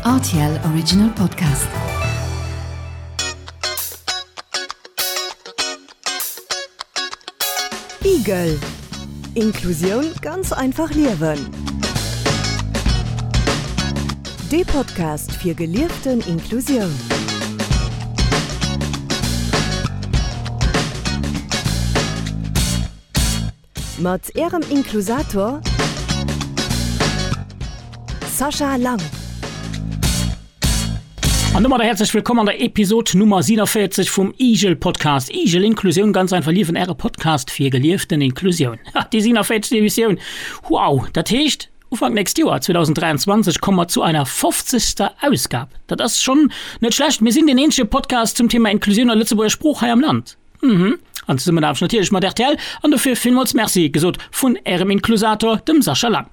Rtl Original Podcast. Igel, Inklusioun ganz einfach liewen. Dee Podcast fir gelieften Inklusioun. Mat Ärem Inklusator Sascha Lang. An domadder häerzlech wëllkomm an der Episod Nummer 47 vum Igel Podcast. Igel, Inklusioun ganz einfach liewen, Äre Podcast fir gelieften Inklusioun. Ha, déi 47. Emissioun! Wow! Dat heescht, Ufank nächst Joer, 2023, komme mer zu einer 50. Ausgab. Dat ass schonn net schlecht. Mir sinn deen eenzege Podcast zum Thema Inklusioun a Lëtzebuerger Sprooch hei am Land. Mhm. An Zesummenaarbecht natierlech mat rtl. An dofir villmools Merci gesot vun Ärem Inklusator, dem Sascha Lang.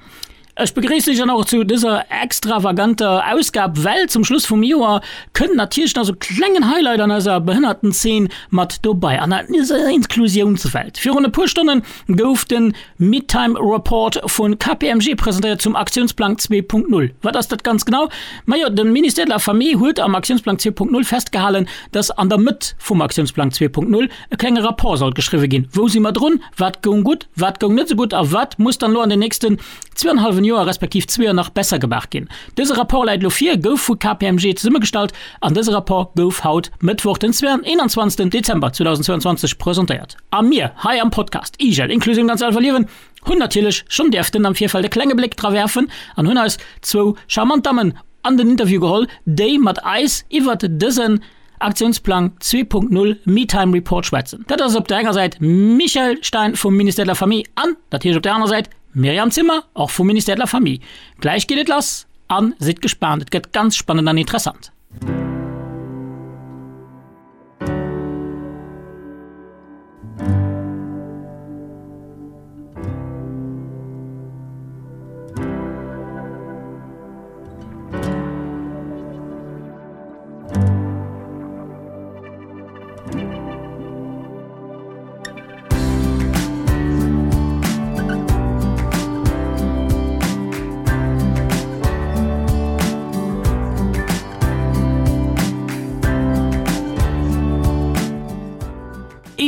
Ech begréissen iech dann och zu dëser extravaganter Ausgab, well zum Schluss vum Joer kënnt natierlech nach sou klengen Highlight an eiser Behënnertenzeen mat dobei, an eiser Inklusiounswelt. Virun e puer Stonne gouf de Midtime Report vu KPMG presentéiert zum Aktiounsplang 2.0. Wat ass dat ganz genau? Majo, de Ministère de la Famille huet am Aktiounsplang 2.0 festgehalen, dass an der Mëtt vum Aktiounsplang 2.0 e klenge Rapport sollt geschriwwe ginn, Wou si mer drun? Wat goung gutt? Wat goung net esou gutt? A wat muss dann elo an den nächsten zweienhalwen Joer respektiv zwee Joer nach besser gemaach ginn? Dëse Rapport läit elo vir, gouf vu KPMG zesummegestallt an dëse Rapport gouf haut, Mëttwoch den 21. Dezember 2022 presentéiert. A mir hei am Podcast IGEL, Inklusioun ganz einfach liewen, hunn natierlech schonn däerften am Virfeld e klenge Bléck dra werfen an hunn eis zwou charmant Dammen an den Interview geholl, déi mat eis iwwert dësen Aktiounsplang 2.0 Me-Time Report schwätzen. Dat ass op der enger Säit Michèle Stein vum Ministère de la Famille an natierlech op der anerer Säit Myriam Zimmer, och vum Ministère de la Famille. Gläich geet et lass a sidd gespaant, et gëtt ganz spannend an interessant.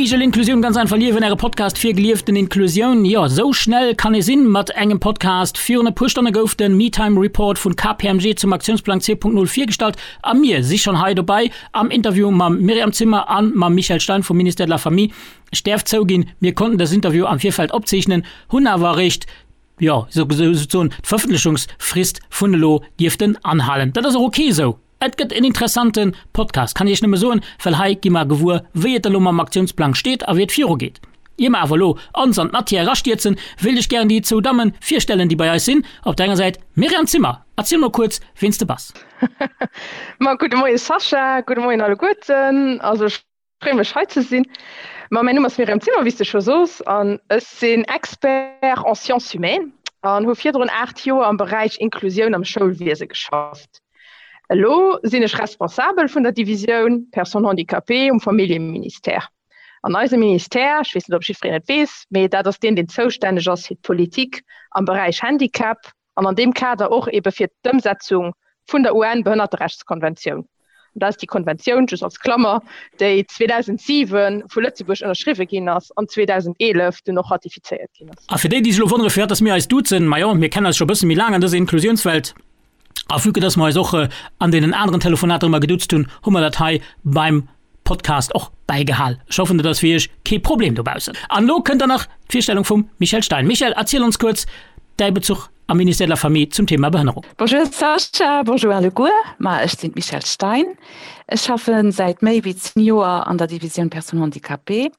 Igel Inklusioun ganz einfach liewen, Äre Podcast fir gelieften Inklusioun. Jo, sou schnell kann ee sinn mat engem Podcast. Virun e puer Stonne gouf de Me-Time Report vun KPMG zum Aktiounsplang 2.0 virgestallt a mir si schonn hei dobei am Interview mam Myriam Zimmer an mam Michèle Stein vum Ministère de la Famille. Ech däerf zouginn, mir konnten dës Interview am Virfeld opzeechnen, hunn awer eréischt jo, souzesoen d'Verëffentlechungsfrist vun elo dierften anhalen. Dat ass och ok esou. Et gëtt en interessante Podcast, kann ech iech nëmme soen, well hei gi mer gewuer, wéi et elo mam Aktiounsplang steet a wéi et virugeet. Ier mer awer elo ons an d'Matière erastierzen, wéilt ech gären déi zwou Damme virstellen, déi bei eis sinn. Op der enger Säit d'Myriam Zimmer. Erziel mol kuerz, ween s de bass. Ma gudde Moie Sascha, gudde Moien alleguerten. Also ech Freeë mech hei ze sinn. Ma mäin Numm ass Myriam Zimmer, wéi s de scho sos, an ech sinn Expert en sciences humaines an hu virdrun 8 Joer am Beräich Inklusioun am Schoulwiese geschafft. Elo sinn ech Responsabel vun der Divisioun Personnes handicapées um Familljeministère. An eise Ministère, ech weess net, ob jiddwereen et weess, mee dat ass deen, deen zoustänneg ass fir d'Politik am Beräich Handicap, an an deem Kader och ebe fir d'Ëmsetzung vun der UN-Behënnerterechtskonventioun. An dat ass déi Konventioun, just als Klammer, déi 2007 vu Lëtzebuerg ënnerschriwwe ginn ass an 2011 dunn och ratifizéiert ginn ass. A fir déi, déi sech elo wonnere firwat dass mir eis duzen, majo, mir kennen eis scho e bësse méi laang an dëser Inklusiounswelt a vue que dass mer eis och an deenen aneren Telefonater ëmmer geduzt hunn, hu mer dat hei beim Podcast och bäigehal. Ech hoffen, dat ass fir iech kee Problem dobaussen. An elo kënnt dann nach d'Virstellung vum Michèle Stein. Michèle, erziel ons kuerz däi Bezuch am Ministère de la Famille zum Thema Behënnerung. Bonjour Sascha, bonjour alleguer. Ma ech sinn d'Michèle Stein. Ech schaffe säit méi wéi 10 Joer an der Divisioun Personnes handicapées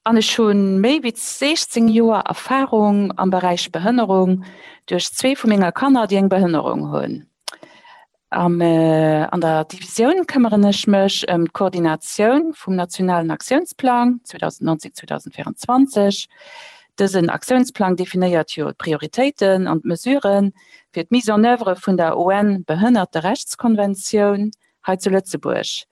an ech hu méi wéi 16 Joer Erfarung am Beräich Behënnerung duerch zwee vu menger Kanner, déi eng Behënnerung hunn. Am an der Divisioun këmmeren ech mech ëm d'Koordinatioun vum nationalen Aktiounsplang 2019, 2024. Dësen Aktiounsplang definéiert jo d'Prioritéiten an d'Mesuren fir d'Mise en œuvre vun der UN-Behënnerterechtskonventioun hei zu Lëtzebuerg.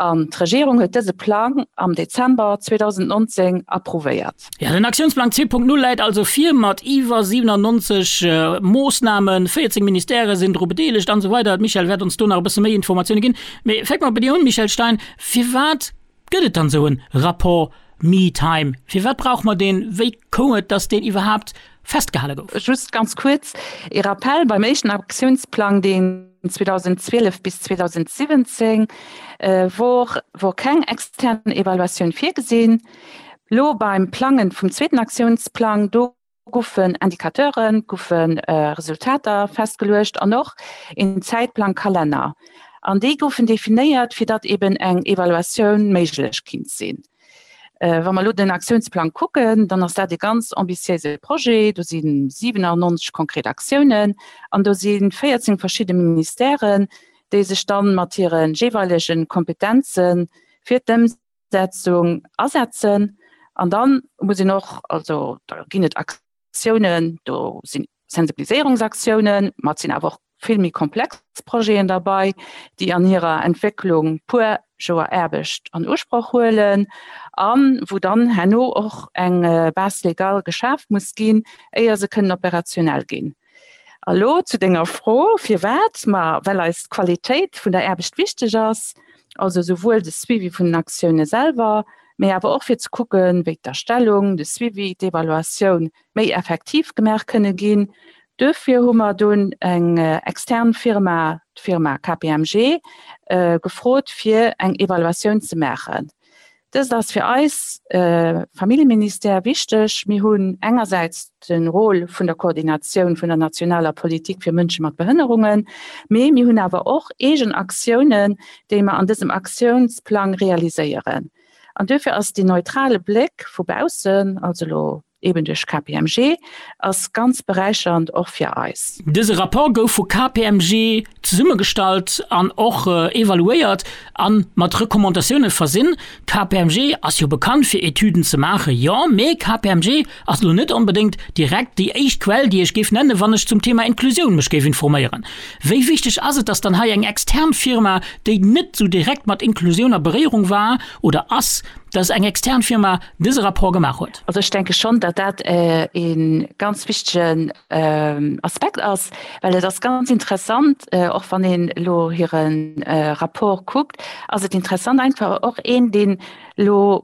An d'Regierung huet dëse Plang am Dezember 2019 approuvéiert. Jo, den Aktiounsplang 2.0 läit also vir mat iwwer 97 Moossnamen, 14 Ministèrë sinn dru bedeelegt an esou weider. D'Michèle wäert ons do nach e bësse méi Informatioune ginn. Mee fänke mer bei dir un, Michèle Stein, Firwat gëtt et dann esou e Rapport Me-Time? Firwat brauche mer deen? Wéi koum et, datt deen iwwerhaapt festgehale gouf? Just ganz kuerz ee Rappell, Beim éischten Aktiounsplang, deen 2012 bis 2017 wor, wor keng extern Evaluatioun virgesinn. Lo beim Plangen vum zweeten Aktiounsplang, do goufen Indicateuren, goufe Resultater festgeluecht an och een Zäitplang, Kalenner. An déi goufen definéiert, fir datt eben eng Evaluatioun méiglech kinnt sinn. Wa mer elo den Aktiounsplang kucken, dann ass dat e ganz ambitiéise Projet. Do si 97 konkret Aktiounen an do si 14 verschidde Ministèren, déi sech dann mat hire jeeweilege Kompetenze fir d'Ëmsetzung asetzen. An da muss een och, also da ginn et Aktiounen, do sinn Sensibiliséierungsaktiounen, ma et sinn awer och vill méi komplex Projeten derbei, déi an hirer Entwécklung puer Joer Aarbecht an Usproch huelen a wou dann herno och eng Base légale geschaaft muss ginn, éier se kënnen operationell ginn. A lo zu denger Fro, Firwat? Ma well eis d'Qualitéit vun der Aarbecht wichteg ass, also souwuel de Suivi vun den Aktioune selwer, mee awer och fir ze kucken, wéi d'Erstellung, de Suivi, d'Evaluatioun méi effektiv gemaach kënne ginn. Duerfir hu mer dunn eng extern Firma, d'Firma KPMG, gefrot, fir eng Evaluatioun ze maachen. Dëst ass fir eis Familljeministère wichteg. Mir hunn engersäits de Rôle vun der Koordinatioun vun der nationaler Politik fir Mënsche mat Behënnerungen, mee mir hunn awer och eegen Aktiounen, déi mer an dësem Aktiounsplang realiséieren. An duerfir ass deen neutrale Bléck vu baussen, also elo eben duerch KPMG, ass ganz beräichernd och fir eis. Dëse Rapport gouf vu KPMG zesummegestallt an och evaluéiert a mat Recommandatioune versinn. KPMG ass jo bekannt fir Etüden ze maachen, jo, mee KPMG ass elo net onbedéngt direkt déi éischt Quell, déi ech géif nennen, wann ech zum Thema Inklusioun mech géif informéieren. Wéi wichteg ass et, dass dann hei eng extern Firma, déi net sou direkt mat Inklusioun a Beréierung war oder ass, dass eng extern Firma dëse Rapport gemaach huet? Also ech denke schonn, datt dat e ganz wichtegen Aspekt ass, well et ass ganz interessant, och wann een elo hire Rapport kuckt, ass et interessant einfach och een, deen elo,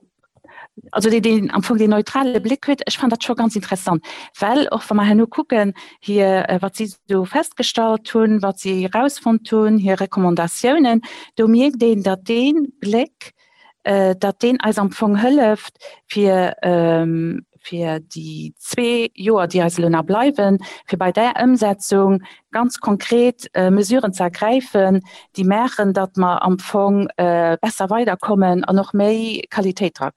also deen, deen am Fong deen neutrale Bléck huet, ech fannen dat scho ganz interessant, well och wa mer herno kucken, hir, wat si do festgestallt hunn, wat si erausfonnt hunn, hir Recommandatiounen, do mierkt een, datt dee Bléck, datt deen eis am Fong hëlleft, fir, fir déi zwee Joer, déi eis elo nach bleiwen, fir bei där Ëmsetzung ganz konkret Mesuren ze ergräifen, déi maachen, datt mer am Fong besser weiderkommen an och méi Qualitéit dra,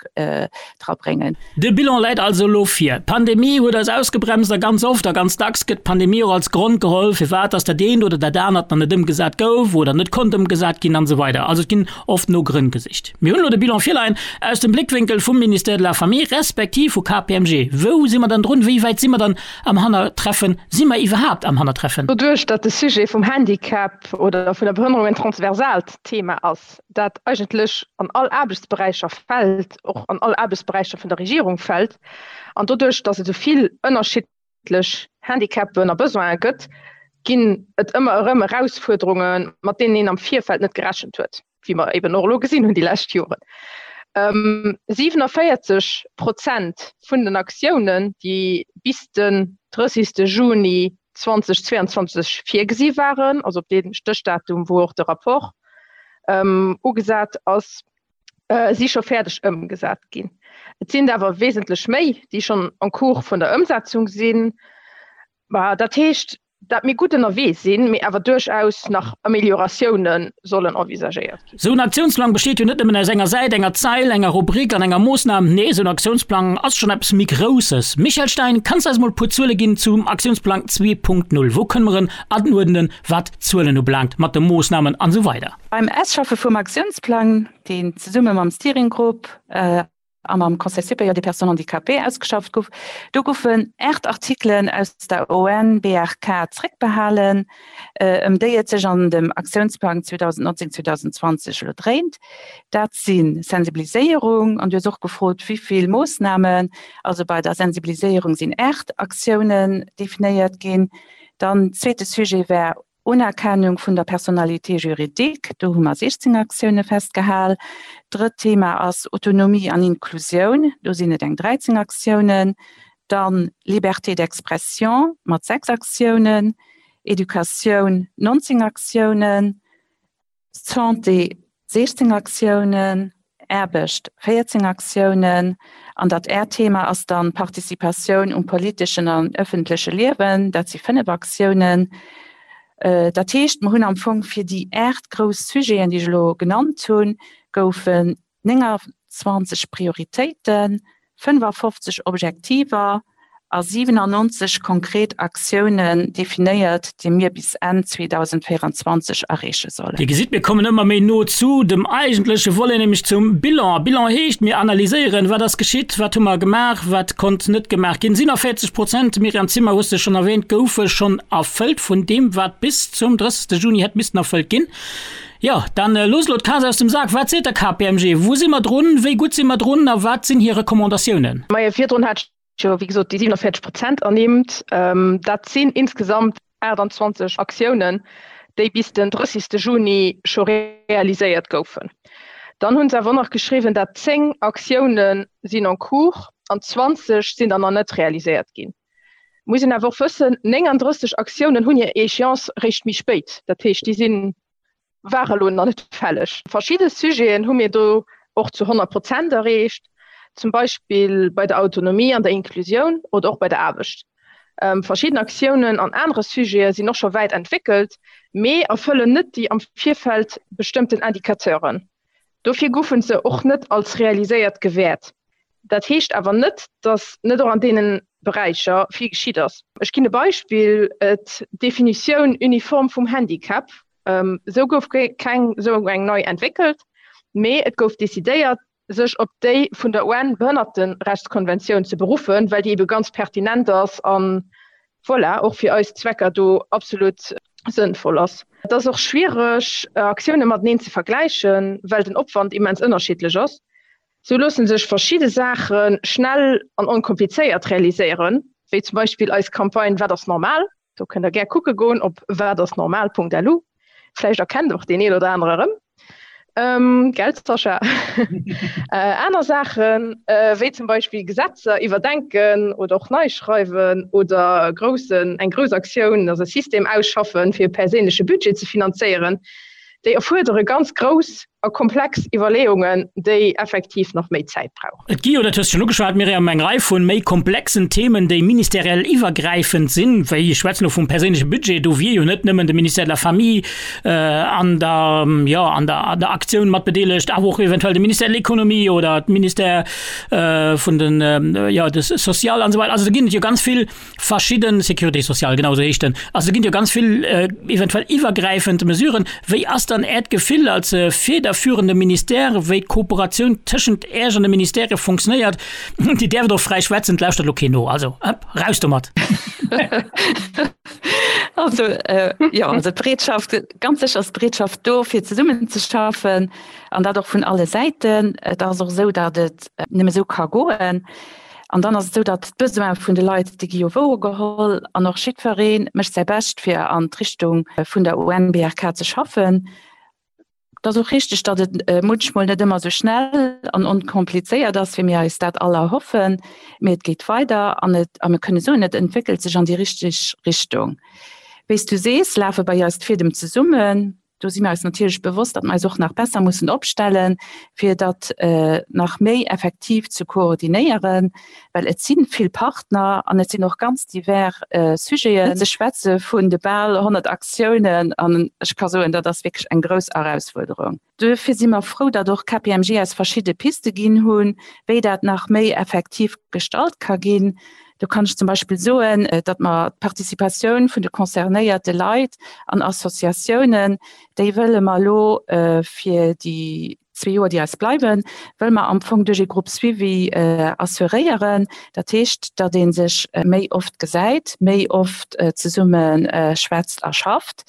drabréngen. De Bilan läit also elo vir. D'Pandemie huet eis ausgebremst a ganz oft a ganz dacks gëtt d'Pandemie och als Grond geholl, firwat dass dat eent oder dat anert nach net ëmgesat gouf oder net konnt ëmgesat ginn an esou weider. Also et ginn oft no Grënn gesicht. Mir hunn elo de Bilan virleien aus dem Bléckwénkel vum Ministère de la Famille respektiv vu KPMG. Wou si mer dann drun? Wéi wäit si mer dann am Hannertreffen? Si mer iwwerhaapt am Hannertreffen? Doduerch, datt de Sujet vum Handicap oder vun der Behënnerung en transversaalt Thema ass, dat eigentlech an all Aarbechtsberäicher fält, och an all Aarbechtsberäicher vun der Regierung fält, an doduerch, datt et esou vill ënnerschiddlech Handicapen a Besoine gëtt, ginn et ëmmer erëm Erausfuerderungen, mat deenen een am Virfeld net gerechent huet, wéi mer eben och elo gesinn hunn déi lescht Joren. 47 Prozent vun den Aktiounen, déi bis den 30. Juni 2022 virgesi waren, also op dee Stéchdatum, wou och de Rapport ugesat ass, si scho fäerdeg ëmgesat ginn. Et sinn der awer wesentlech méi, déi schonn en cours vun der Ëmsetzung sinn. Dat heescht, dat mir gutt ënnerwee sinn, mee awer duerchaus nach Amélioratioune sollen envisagéiert ginn. Esou en Aktiounsplang besteet jo net nëmmen aus enger Säit, enger Zeil, enger Rubrik an enger Moossnam. Nee, esou en Aktiounsplang ass schonn eppes méi Grousses. Michèle Stein, kanns de eis mol e puer Zuele ginn zum Aktiounsplang 2.0? Wou kënne mer en anuerdnen, wat d'Zuelen ubelaangt, mat de Moossnamen an esou weider? Beim Ausschaffe vum Aktiounsplang, deen zesumme mam Steering Group. A mam Conseil supérieur des personnes handicapées ausgeschafft gouf. Do goufen 8 Artikelen aus der ONBRK zréckbehalen, ëm déi et sech an dem Aktiounsplang 2019, 2020 elo dréint. Dat si Sensibiliséierung, an du hues och gefrot, wéi vill Moossnamen. Also bei der Sensibiliséierung sinn 8 Aktiounen definéiert ginn. Dann zweete Sujet war Unerkennung vun der Personnalité juridique, do hu mer 16 Aktioune festgehal. Drëtt Thema ass Autonomie an Inklusioun, do sinn et eng 13 Aktiounen. Dann Liberté d'expression mat 6 Aktiounen, Educatioun 19 Aktiounen, Santé 16 Aktiounen, Aarbecht 14 Aktiounen an dat äert Thema ass dann Participatioun um politeschen an ëffentleche Liewen, dat si 5 Aktiounen. Dat heescht, mer hunn am Fong fir déi 8 grouss Sujeten, déi ech elo genannt hunn, goufen 29 Prioritéiten, 55 Objektiver a 97 konkret Aktiounen definéiert, déi mir bis Enn 2024 erreeche sollen. Dir gesitt, mir kommen ëmmer méi no zu dem eigentleche Volet, nämlech zum Bilan. Bilan heescht, mir analyséieren, wat ass geschitt, wat hu mer gemaach, wat konnt net gemaach ginn. 47 Prozent, Myriam Zimmer hues de schonn erwähnt, goufe schonn erfëllt vun deem, wat bis zum 30. Juni hätt missten erfëllt ginn. Jo, dann looss elo d'Kaz aus dem Sak. Wat seet der KPMG? Wou si mer drun? Wéi gutt si mer drun? A wat sinn hir Recommandatiounen? Majo, virdrun hat ech jo, wéi gesot, déi 47 Prozent ernimmt. Dat sinn insgesamt 28 Aktiounen, déi bis den 30. Juni scho realiséiert goufen. Dann hu se awer och nach geschriwwen, dat 10 Aktioune sinn en cours an 20 sinn der nach net realiséiert ginn. Muss een awer och wëssen, 39 Aktiounen hunn hir Échéance réischt méi spéit. Dat heescht, déi sinn, ware elo nach net fälleg. Verschidde Sujeten hu mir do och zu 100 Prozent erreecht, zum Beispill bei der Autonomie an der Inklusioun oder och bei der Aarbecht. Verschidden Aktiounen an anere Sujete sinn och scho wäit entwéckelt, mee erfëllen net déi am Virfeld bestëmmten Indicateuren. Dofir goufe se och net als realiséiert gewäert. Dat heescht awer net, datt net och an deene Beräicher vill geschitt ass. Ech ginn e Beispill, D'Definitioun uniform vum Handicap, esou gouf keng esou eng nei entwéckelt, mee et gouf decidéiert, sech op déi vun der UN-Behënnerterechtskonventioun ze beruffen, well déi ebe ganz pertinent ass an, voilà, och fir eis Zwecker do absolut sënnvoll ass. Et ass och schwiereg, Aktioune mateneen ze vergläichen, well den Opwand immens ënnerschiddlech ass. Sou loosse sech verschidde Saache schnell an onkomplizéiert realiséieren, wéi zum Beispill eis Campagne Wat ass normal? Do kënnt der gär kucke goen op watassnormal.lu. Vläicht erkennt och deen een oder anere erëm. Gell Sascha? Aner Saachen, wéi zum Beispill Gesetzer iwwerdenken oder och nei schreiwen oder groussen, eng grouss Aktioun, also e System ausschaffen, fir e perséinleche Budget ze finanzéieren, déi erfuerdere ganz grouss a komplex Iwwerleeungen, déi effektiv nach méi Zäit brauchen. Et gi jo, dat hues de schonn ugeschwat, Myriam, eng Rei vu méi komplexen Themen, déi ministeriell iwwergräifend sinn, wéi, ech schwätzen elo vum perséinleche Budget, do wier jo net nëmmen de Ministère de la Famille an der, jo, an der, an der Aktioun mat bedeelegt, awer och eventuell de Ministère de l'Économie oder d'Ministère vun den, jo, de Social an esou weider. Also do ginn et jo ganz vill Verschidden, Sécurité sociale, genau esou heescht en. Also do ginn jo ganz vill eventuell iwwergräifend Mesuren. Wéi ass dann Äert Gefill als federführende Ministère, wéi d'Kooperatioun tëschent Äech an de Ministèrë funktionéiert? Dir däerft och fräi schwätzen, et lauschtert elo keen no. Also, hëpp, raus domat! Also, jo, also d'Bereetschaft, ganz sécher ass d'Bereetschaft do, fir zesummenzeschaffen, an dat och vun alle Säiten. Et ass och esou, datt et nëmme esou ka goen. An dann ass et esou, datt d'Besoine vun de Leit, déi gi jo wouergeholl an och jiddweree mécht säi Bescht, fir an d'Richtung vun der UNBRK ze schaffen. Et ass och richteg, datt et munchmol net ëmmer esou schnell an onkomplizéiert ass, wéi mir eis dat all erhoffen, mee et geet weider an et, a mir kënne soen, et entwéckelt sech an déi richteg Richtung. Wéi s du sees, lafe bei eis d'Fiedem zesummen. Do si mir eis natierlech bewosst, datt mer eis och nach besser mussen opstellen, fir dat nach méi effektiv ze koordinéieren, well et si vill Partner an et sinn och ganz divers Sujeten. Ze schwätze vun de bal 100 Aktiounen, an ech ka soen, dat ass wierklech eng grouss Erausfuerderung. Duerfir si mer frou, datt och KPMG eis verschidde Piste ginn hunn, wéi dat nach méi effektiv gestalt ka ginn. Do kann ech zum Beispill soen, datt mer d'Participatioun vun de concernéierte Leit an Associatiounen, déi wëlle mer elo fir déi. zwee Joer, déi eis bleiwen, wëlle mer am Fong duerch ee Groupe suivi assuréieren. Dat heescht, datt ee sech méi oft gesäit, méi oft zesumme schwätzt a schafft.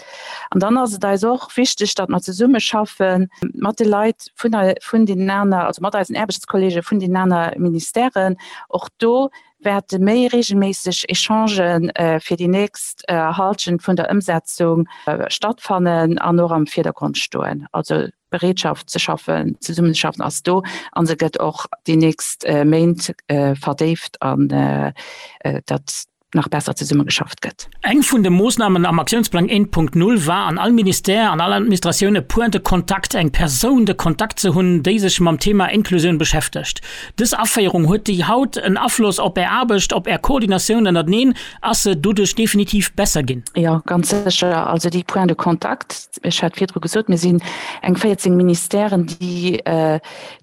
An dann ass et eis och wichteg, datt mer zesumme schaffe mat de Leit vun, vun deenen aner, also mat eisen Aarbechtskollege vun deenen aner Ministèren. Och do wäerte méi reegelméisseg Echangen fir déi nächst Halschent vun der Ëmsetzung stattfannen an och am Virdergrond stoen. Also d'Bereetschaft ze schaffen, zesummen ze schaffen ass do a se gëtt och déi nächst Méint verdéift an datt nach besser zesummegeschafft gëtt. Eng vun de Moossnamen am Aktiounsplang 1.0 war, an all Ministère, an all Administratioun e Point de contact, eng Persoun de contact ze hunn, déi sech mam Thema Inklusioun beschäftegt. Dës Aféierung, huet déi haut en Afloss op Är Aarbecht, op Är Koordinatioun ënnerteneen? Ass se doduerch definitiv besser ginn? Jo, ganz sécher. Also déi Points de contact, ech hat virdru gesot, mir sinn eng 14 Ministèren, déi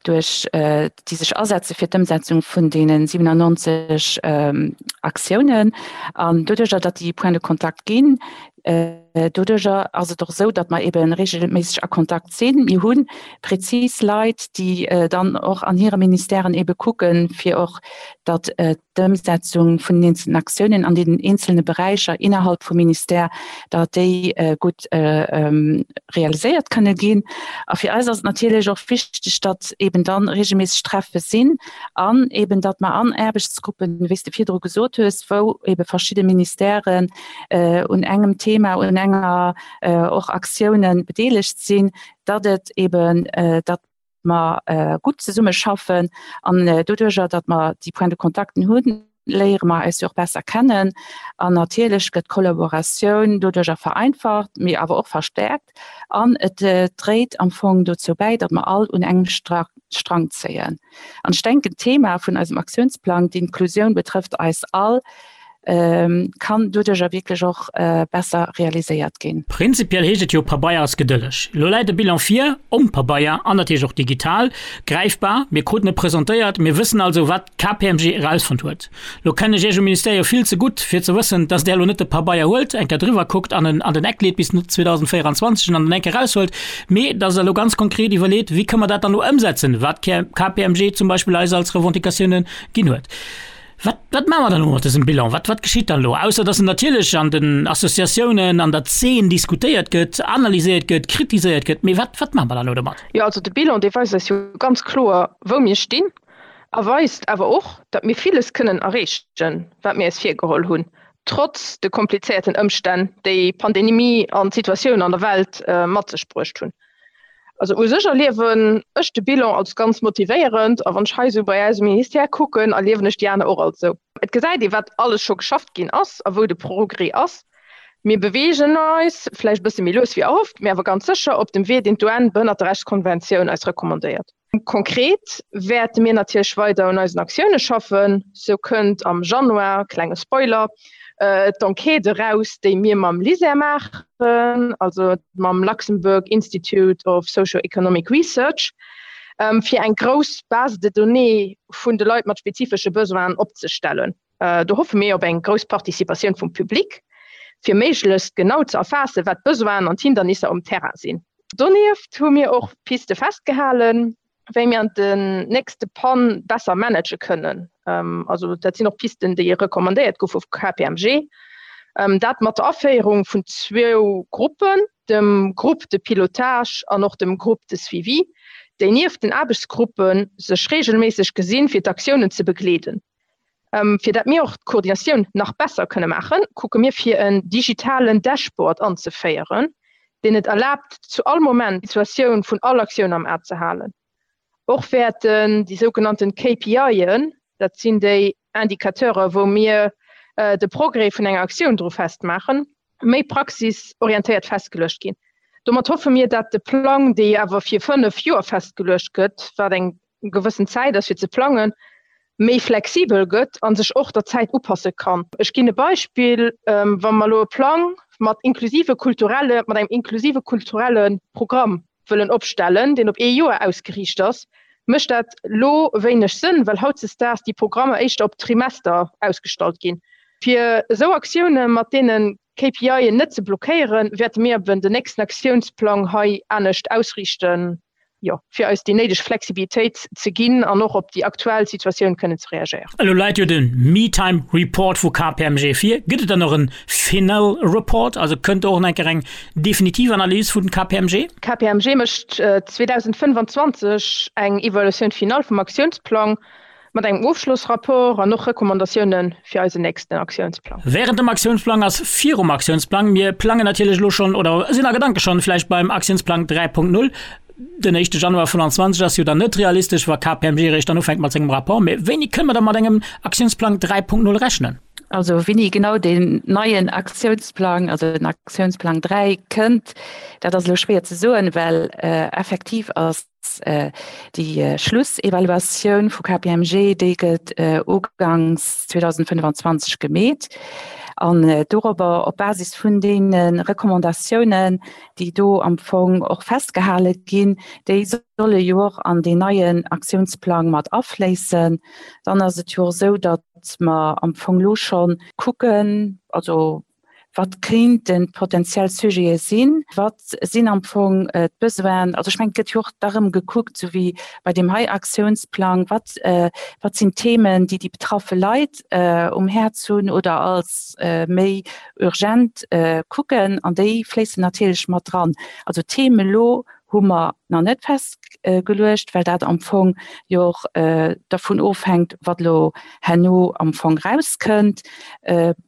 duerch, déi sech asetze fir d'Ëmsetzung vun deene 97 Aktiounen. An doduerjer, datt déi Points de contact ginn, Doduerjer ass et och esou, datt mer ebe regelméisseg a Kontakt sinn. Mir hu prezis Leit, déi dann och an hire Ministèren ebe kucken, fir och datt d'Ëmsetzung vun den eenzelnen Aktiounen an deenen eenzelne Beräicher innerhalb vum Ministère, datt déi gutt realiséiert kënne ginn. A fir eis ass et natierlech och wichteg, datt eben dann regelméisseg Treffe sinn an eben datt mer an Aarbechtsgruppen, wéi s de virdru gesot hues, wou ebe verschidde Ministèren un engem Thema, un enger och Aktiounen bedeelegt sinn, datt et eben, datt mer gutt zesummeschaffen an doduerjer, datt mer déi Points de contacten hunn, léiere mer eis jo och besser kennen an natierlech gëtt d'Kollaboratioun doduerjer vereinfacht, mee awer och verstärkt an et dréit am Fong dozou bäi, datt mer all un engem Strang zéien. An ech denken, d'Thema vun eisem Aktiounsplang, d'Inklusioun betrëfft eis all, kann doduercher wierklech och besser realiséiert ginn. Prinzipiell heescht et jo, Pabeier ass gedëlleg. Elo läit e Bilan vir, om Pabeier an natierlech och digital, gräifbar. Mir kruten e presentéiert, mir wëssen also, wat d'KPMG erausfonnt huet. Elo kennen ech Iech um Ministère jo vill ze gutt, fir ze wëssen, dass Der elo net de Pabeier huelt, eng Kéier driwwer kuckt an en an den Eck leet bis 2024 an dann eng Kéier eraushuelt, mee dass Der elo ganz konkret iwwerleet, wéi kënne mer dat dann elo ëmsetzen, wat d'KPMG zum Beispill eis als Revendicatiounen ginn huet. Wat, wat maache mer dann elo mat dësem Bilan? Wat, wat geschitt dann elo? Ausser dass en natierlech an den Associatiounen, an der Zeen diskutéiert gëtt, analyséiert gëtt, kritiséiert gëtt. Mee wat, wat maache mer dann elo domat? Jo, also de Bilan, dee weist eis jo ganz kloer, wou mir stinn a weist awer och, datt mir villes kënnen erreechen, wat mir eis virgeholl hunn, trotz de komplizéierten Ëmstänn, déi d'Pandemie an d'Situatioun an der Welt mat sech bruecht hunn. Also u sech erliewen ech de Bilan als ganz motivéierend a wann ech hei esou bei eis um Ministère kucken, erliewen ech déi aner och als esou. Et gesäit ee wat alles scho geschafft ginn ass a wou de Progrès ass. Mir beweegen eis, vläicht e bësse méi lues wéi erhofft, mee awer ganz sécher op dem Wee, deen d'UN-Behënnerterechtskonventioun eis recommandéiert. Konkret wäerte mir natierlech weider un eisen Aktioune schaffen. Sou kënnt am Januar, klenge Spoiler, d'Enquête eraus, déi mir mam LISER maachen, also mam Luxembourg Institute of Socio-Economic Research, fir eng grouss Base de données vun de Leit mat spezifesche Besoinen opzestellen. Do hoffe mir op eng grouss Participatioun vum Public, fir méiglechst genau ze erfaassen, wat d'Besoinen an d'Hindernisser um Terrain sinn. Donieft hu mir och Piste festgehalen, wéi mir an den nächste Pann besser manage kënnen. Also dat sinn och Pisten, déi recommandéiert goufe vu KPMG. Dat mat der Aféierung vun zwou Gruppen, dem Groupe de pilotage an och dem Groupe de suivi, déi nieft den Aarbechtsgruppe sech reegelméisseg gesinn, fir d'Aktiounen ze begleeden. Fir dat mir och d'Koordinatioun nach besser kënne maachen, kucke mir fir en digitalen Dashboard anzeféieren, deen et erlaabt zu all Moment d'Situatioun vun all Aktioun am A ze halen. Och wäerten déi sougenannten KPIen, dat sinn déi Indicateure wou mir de Progrès vun enger Aktioun dru festmaachen, méi praxisorientéiert festgeluecht ginn. Domat hoffe mir, dat de Plang, dee awer fir 5 Joer festgeluecht gëtt, wat eng gewëssen Zäit ass fir ze plangen, méi flexibel gëtt a sech och der Zäit upasse kann. Ech ginn e Beispill, Wa mer elo e Plang mat inklusive kulturelle, mat engem inklusive kulturelle Programm wëllen opstellen, deen op ee Joer ausgeriicht ass, mécht dat elo wéineg Sënn, well hautzesdaags déi Programmer éischter op Trimester ausgestallt ginn. Fir esou Aktioune mat deene KPIen net ze blockéieren, wäerte mir eben den nächsten Aktiounsplang hei anescht ausriichten. Jo, fir eis déi néideg Flexibilitéit ze ginn an och op déi aktuell Situatioun kënnen ze reagéieren. Elo läit jo de Me-Time Report vu KPMG vir. Gëtt et dann och en Final Report? Also kënnt do och nach eng Kéier eng definitiv Analys vun KPMG? KPMG mécht 2025 eng Evaluatioun finale vum Aktiounsplang Mat engem Ofschlossrapport an och Recommandatioune fir eisen nächsten Aktiounsplang. Während dem Aktiounsplang ass virum Aktiounsplang. Mir plangen natierlech elo schonn oder sinn a Gedanke schonn vläicht beim Aktiounsplang 3.0. Den éischte Januar 25 ass jo dann net realistesch, wa KPMG eréischt dann ufänkt mat sengem Rapport. Mee wéini kënne mer da mat engem Aktiounsplang 3.0 rechnen? Also wéini genau deen neien Aktiounsplang, also den Aktiounsplang 3 kënnt, dat ass elo schwéier ze soen, well effektiv ass Déi Schlussevaluatioun vu KPMG, déi gëtt uganks 2025 gemeet. An dorobber, op Basis vun deene Recommandatiounen, déi do am Fong och festgehale ginn, déi solle jo och an deen neien Aktiounsplang mat afléissen. Dann ass et jo och esou, datt mer am Fong elo scho kucken, also Wat kéinten d'potenziell Sujete sinn? Wat sinn am Fong d'Besoinen? Also ech mengen, et gëtt jo och da rëm gekuckt, esou wéi bei deem hei Aktiounsplang, wat, wat sinn d'Themen, déi déi betraffe Leit um Häerz hunn oder als méi urgent kucken. An déi fléissen natierlech mat dran. Also d'Theme elo hu mer nach net festgeluecht, well dat am Fong jo och dervun ofhänkt, wat elo herno am Fong erauskënnt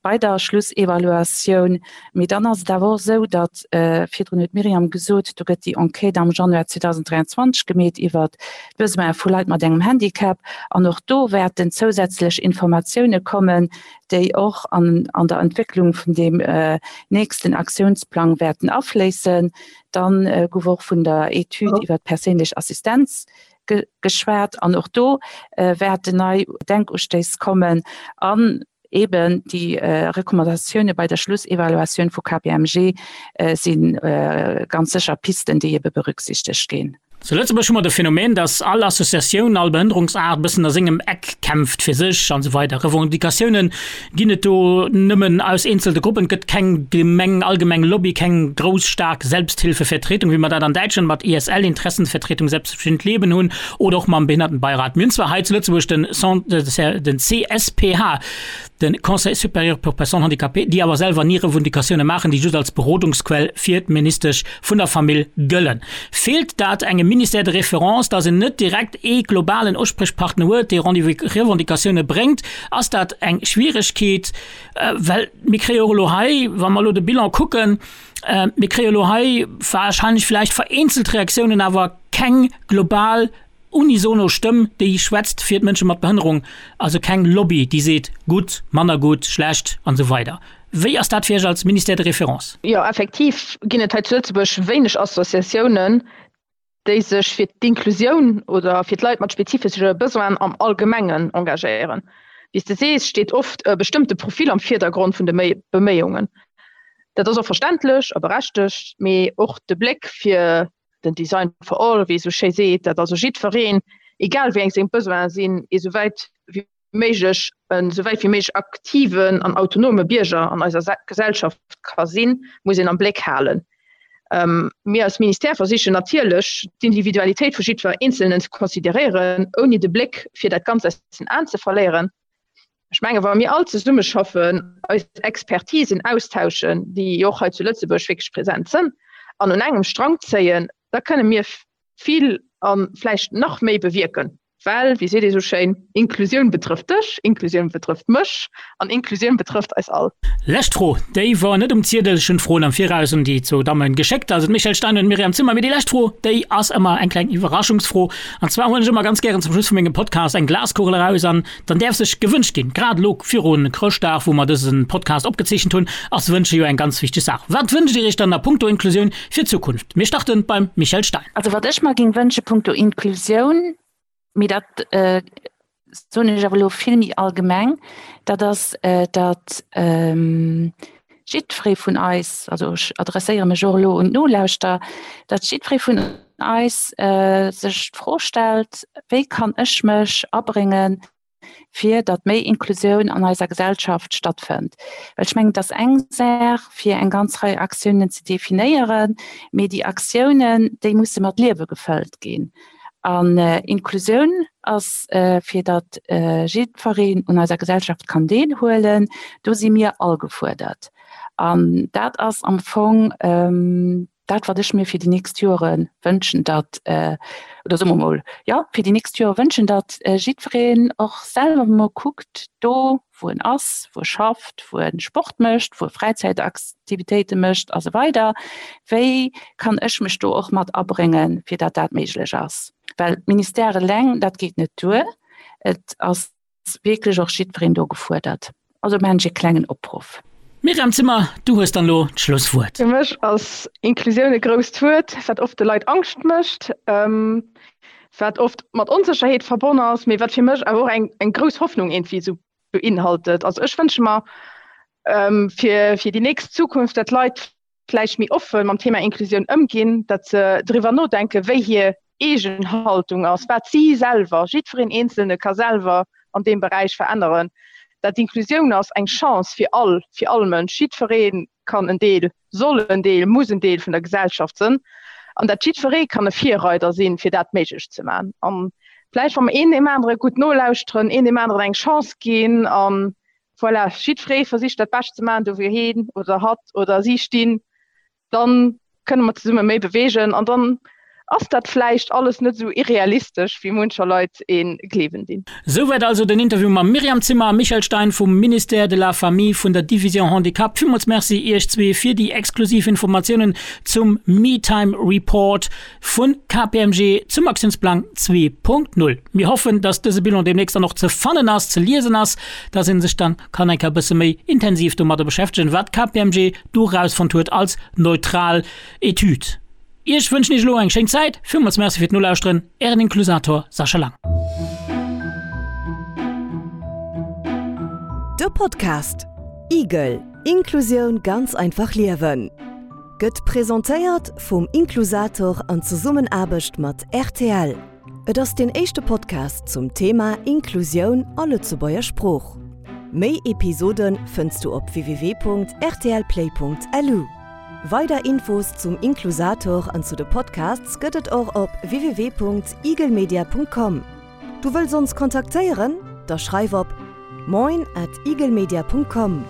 bei der Schlussevaluatioun. Mee dann ass et awer och esou, datt, virdrun huet d'Myriam gesot, do gëtt déi Enquête am Januar 2023 gemeet iwwert d'Besoine vu Leit mat engem Handicap. An och do wäerten zousätzlech Informatioune kommen, déi och an der Entwécklung vun deem nächsten Aktiounsplang wäerten afléissen. Dann gouf och vun der Etüd iwwer d'perséinlech Assistenz geschwat an och do wäerten nei Denkustéiss kommen an eben déi Recommandatioune bei der Schlussevaluatioun vu KPMG si ganz sécher Pisten, déi ebe berücksichtegt ginn. Zu Lëtzebuerg hu mer de Phänomen, dass all Associatioun, all Behënnerungsaart e bëssen a sengem Eck kämpft fir sech an esou weider. Revendicatiounen ginn et do nëmmen aus eenzelte Gruppen. Et gëtt keng Gemeng, allgemeng Lobby, keng grouss, staark Selbsthilfevertretung, wéi mer dat an Däitschland mat ISL, Interessenvertretung Selbstbestimmt Leben, hunn oder och mam Behindertenbeirat. Mir hunn zwar hei zu Lëtzebuerg den den CSPH, de Conseil supérieur pour personnes handicapées, déi awer selwer ni Revendicatioune maachen, déi just als Berodungsquell fir d'Ministesch vun der Famill gëllen. Feelt dat engem Ministère de référence, datt en net direkt ee globalen Usprichpartner huet, dee Revendicatioune bréngt? Ass dat eng Schwieregkeet? Well mir kréie och elo hei, wa mer elo de Bilan kucken, mir kréie elo hei wahrscheinlech vläicht vereenzelt Reaktiounen, awer keng global unisono Stëmm, déi schwätzt fir d'Mënsche mat Behënnerung, also keng Lobby, déi seet gutt, manner gutt, schlecht an esou weider. Wéi ass dat fir Iech als Ministère de référence? Jo, effektiv ginn et hei zu Lëtzebuerg wéineg Associatiounen, déi sech fir d'Inklusioun oder fir d'Leit mat spezifesche Besoinen am Allgemengen engagéieren. Wéi s de sees, steet oft e bestëmmte Profil am Virdergrond vun de Beméiungen. Dat ass och verständlech a berechtegt, mee och de Bléck fir den Design for all, wéi ee sou schéi seet, dat also jiddwereen, egal wéi eng seng Besoine sinn, ee sou wäit wéi méiglech, en sou wäit wéi méiglech aktiven an autonome Bierger an eiser Gesellschaft ka sinn, muss een am Bléck halen. Mir als Ministère versichen natierlech, d'Individualitéit vu jiddwer Eenzelnen ze consideréieren, ouni de Bléck fir dat Ganzt aus den Aen ze verléieren. Ech menge wa mir all zesummeschaffen, eis Expertisen austauschen, déi jo och hei zu Lëtzebuerg wierklech present sënn, an un engem Strang zéien, da kënne mir vill a vläicht nach méi bewierken. Well, wéi seet ee sou schéin, Inklusioun betrëfft dech, Inklusioun betrëfft mech an Inklusioun betrëfft eis all. Lescht Fro, déi wor net um Ziedel, ech hunn d'Froen am Viraus un déi zwou Dammen geschéckt, also d'Michèle Stein an d'Myriam Zimmer. Mee déi lescht Fro, déi ass ëmmer eng kleng Iwwerraschungsfro. An zwar huelen ech ëmmer ganz gären zum Schluss vu mengem Podcast eng Glaskugel eraus an Dann däerf sech gewënscht ginn. Grad elo viru Chrëschtdag, wou mer dëse Podcast opgezeechent hunn, ass Wënsche jo eng ganz wichteg Saach. Wat wënscht Dir Iech dann a punkto Inklusioun fir d'Zukunft? Mir starte beim Michèle Stein. Also wat ech mer géing wënsche punkto Inklusioun, mee dat soen ech awer elo vill méi allgemeng, dat ass, datt jiddweree vun eis, also ech adresséiere mech och elo un d'Nolauschterer, datt jiddweree vun eis sech d'Fro stellt, Wéi kann ech mech abréngen? fir datt méi Inklusioun an eiser Gesellschaft stattfënnt. Well ech mengen, et ass eng Saach, fir eng ganz Rei Aktiounen ze definéieren, mee déi Aktiounen, déi musse mat Liewe gefëllt ginn. An Inklusioun ass, fir datt jiddwereen un eiser Gesellschaft kann deelhuelen, do si mir all gefuerdert. An dat ass am Fong dat, wat ech mir fir déi nächst Jore wënschen, datt, oder soe mer emol, jo, fir déi nächst Jore wënschen, datt jiddwereen och selwer emol kuckt, do wou en ass, wou e schafft, wou e Sport mécht, wou e Fräizäitaktivitéite mécht a sou weider, wéi kann ech mech do och mat abréngen, fir datt dat méiglech ass. Well d'Ministère eleng, dat geet net duer. Et ass wierklech och jiddwereen do gefuerdert. Also maachen ech e klengen Opruff. Myriam Zimmer, du hues dann elo d'Schlusswuert. Fir mech ass Inklusioun e grousst Wuert, wat oft de Leit Angscht mécht, wat oft mat Onsécherheet verbonn ass, mee wat fir mech awer och eng eng grouss Hoffnung iergendwéi esou beinhaltet. Also ech wënsche mer fir fir déi nächst Zukunft, dat d'Leit vläicht méi offen mam Thema Inklusioun ëmginn, datt se driwwer nodenken, wéi hir eegen Haltung ass, wat si selwer, jiddwereen Eenzelne ka selwer an deem Beräich veränneren. Dat Inklusioun ass eng Chance fir all, fir all Mënsch. Jiddweree kann en Deel, soll en Deel, muss en Deel vun der Gesellschaft sënn an dat jiddweree kann e Virreider sinn, fir dat méiglech ze maachen. An vläicht, wa mer een deem anere gutt nolauschteren, een deem aneren eng Chance ginn an Voilà, jiddweree versicht dat Bescht ze maachen, do wou heen oder hatt oder si stinn, dann kënne mer zesumme méi beweegen an dann ass dat vläicht alles net esou irrealistesch, wéi muncher Leit ee gleewen dinn. Souwäit also den Interview mam Myriam Zimmer a Michèle Stein vum Ministère de la Famille vun der Division Handicap. Villmools Merci Iech zwee fir déi exklusiv Informatiounen zum Me-Time Report. Vu KPMG zum Aktiounsplang 2.0. Mir hoffen, dass dëse Bilan deemnächst dann och ze fannen ass, ze liesen ass, dass ee sech dann kann eng Kéier e bësse méi intensiv domadder beschäftegen, wat KPMG do erausfonnt huet als neutral Etüd. Iech wënschen ech elo eng schéin Zäit. Villmools Merci fir d'Nolauschteren. Ären Inklusator Sascha Lang. De Podcast Igel, Inklusioun ganz einfach liewen Gëtt presentéiert vum Inklusator an Zesummenaarbecht mat rtl. Et ass deen éischte Podcast zum Thema Inklusioun a Lëtzebuerger Sprooch. Méi Episode fënns du op www.rtlplay.lu. Weider Infos zum Inklusator an zu de Podcasts gëtt et och op www.eaglemedia.com. Du wëlls ons kontaktéieren? Da schreif op moin at eaglemedia.com.